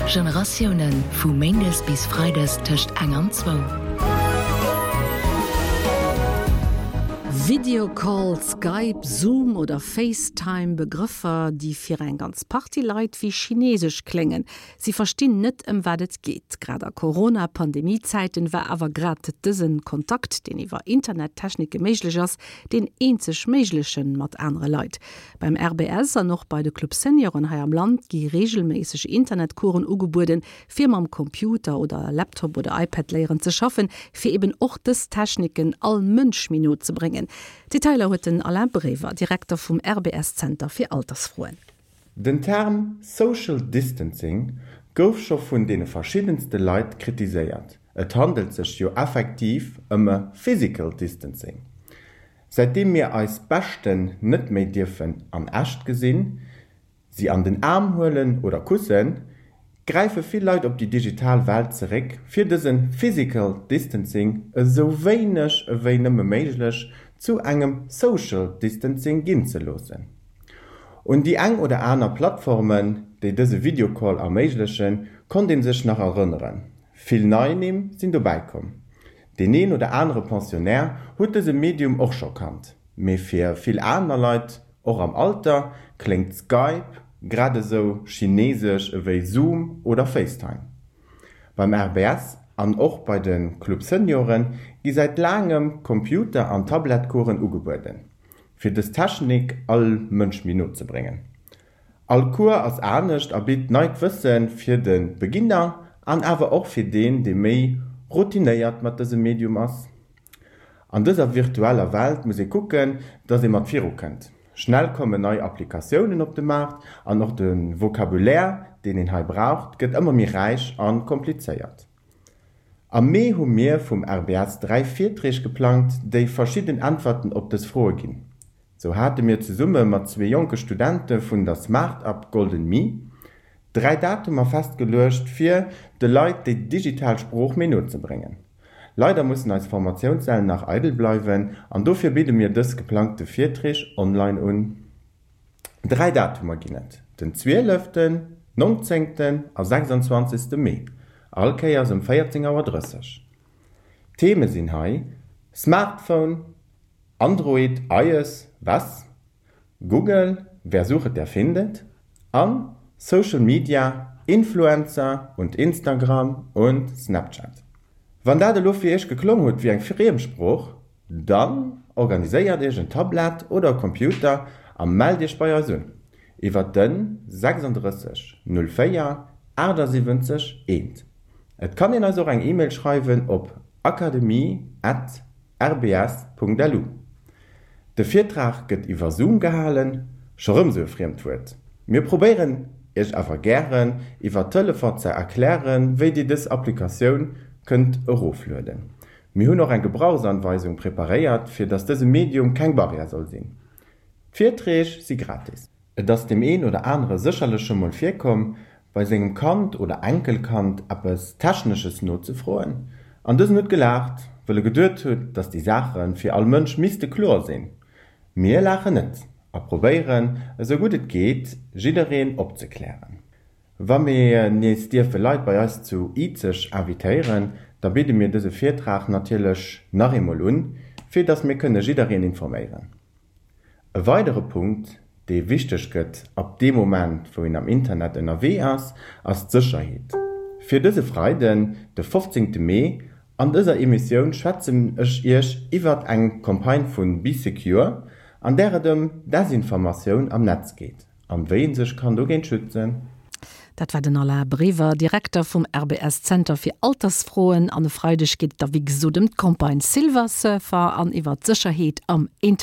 Generatiounen, vu méindes bis freides tëscht eng an zwou. Videocall, Skype, Zoom oder FaceTime, Begrëffer, déi fir eng ganz Partie Leit wéi chinesesch kléngen. Si verstinn net, ëm wat et geet. Grad a Corona-Pandemie-Zäiten war awer grad dëse Kontakt, deen iwwer Internettechnike méiglech ass, deen eenzeg méiglechen mat anere Leit. Beim RBS an och bei de Club Senioren hei am Land gi reegelméisseg Internetcoursen ugebueden, fir mam Computer oder Laptop oder iPad léieren ze schaffen, fir eben och dës Techniken all Mënsch méi no ze bréngen. Detailer huet den Alain Brever, Direkter vum RBS-Zenter fir Altersfroen. Den Term Social Distancing gouf scho vun deene verschiddenste Leit kritiséiert, et handelt sech jo effektiv ëm e Physical Distancing. Säitdeem mir eis Beschten net méi dierfen an echt gesinn, si an den Aarm huelen oder kussen, gräife vill Leit op déi digital Welt zeréck, fir dëse Physical Distancing esou wéineg ewéi nëmme méiglech zu engem Social Distancing ginn ze loossen. Un déi eng oder aner Plattformen, déi dëse Videocall erméiglechen, konnt ee sech nach erënneren. Vill nei Nimm sinn dobäi komm. Deen een oder anere Pensionnaire huet dëse Medium och scho kannt, mee fir vill aner Leit, och am Alter, kléngt Skype grad esou chinesesch ewéi Zoom oder FaceTime. Beim RBS an och bei de Club Senioren gi säit laangem Computer an Tablettcoursen ugebueden, fir dës Technik all Mënsch méi no ze bréngen. All Cours ass anescht a bitt neit Wësse fir de Beginner an awer och fir deen, dee méi routinéiert mat dësem Medium ass. An dëser virtueller Welt muss ee kucken, dass ee mat viru kënnt. Schnell kommen nei Applikatiounen op de Maart an och de Vocabulaire, deen een hei braucht, gëtt ëmmer méi räich a komplizéiert. Am Mee hu mir vum RBS 3 Virträg geplangt, déi verschidden Äntwerten op dës Froe ginn. Sou hate mir zesumme mat zwee jonke Studente vun der Smart-Up Golden Me 3 Datumer festgeluecht, fir de Leit déi digital Sprooch méi no ze bréngen. Leider mussen eis Formatiounssäll nach eidel bleiwen an dofir bidde mir dës geplangte Virträg online un. 3 Datumer ginn et, den zwieleften, nonzéngten a 26. Mee, all Kéiers um 14 Auer 30. D'Theme sinn hei, Smartphone, Android, iOs, was? Google, Wer sucht, der findet an Social Media, Influencer und Instagram und Snapchat. Wann dat elo fir iech geklong huet wéi eng Friemsprooch, dann organiséiert iech en Tablett oder e Computer a mellt iech bei eis un iwwert den 36 04 78 1. Et kann een eis och eng E-Mail schreiwen op akademie at rbs.lu. De Virtrag gëtt iwwer Zoom gehalen, scho rëm sou e friemt Wuert. Mir probéieren iech awer gären iwwer Telefon ze erklären, wéi dir dës Applikatioun kënnt eroflueden. Mir hunn och eng Gebrauchsanweisung preparéiert, fir dass dëse Medium keng Barrière soll sinn. D'Virträg si gratis. Et ass deem een oder anere sécherlech scho mol virkomm, bei sengem Kand oder Enkelkand eppes Technesches nozefroen, an dësen huet gelaacht, wëll e geduet huet, datt déi Saache fir all Mënsch misste kloer sinn. Mir laachen net a probéieren, esou gutt et geet, jiddereen opzeklären. Wa mir nees dierfe Leit bei eis zu Izeg invitéieren, da bidde mir dëse Virtrag natierlech nach eemol un, fir datt mir kënne jiddereen informéieren. E weidere Punkt, dee wichteg gëtt ab deem Moment, wou een am Internet ënnerwee ass, ass d'Sécherheet. Fir dëse Freiden, de 15 Mee, an dëser Emissioun schwätzen ech Iech iwwert eng Campagne vu Bee Secure, an där et ëm Desinformatioun am Netz geet an wéi een sech kann dogéint schützen. Dat war den Alain Brever, Direkter vum RBS Zenter fir Altersfroen. An e Freideg geet et da wéi gesot ëm d'Campagne Silver Surfer an iwwer d'Sécherheet am Internet.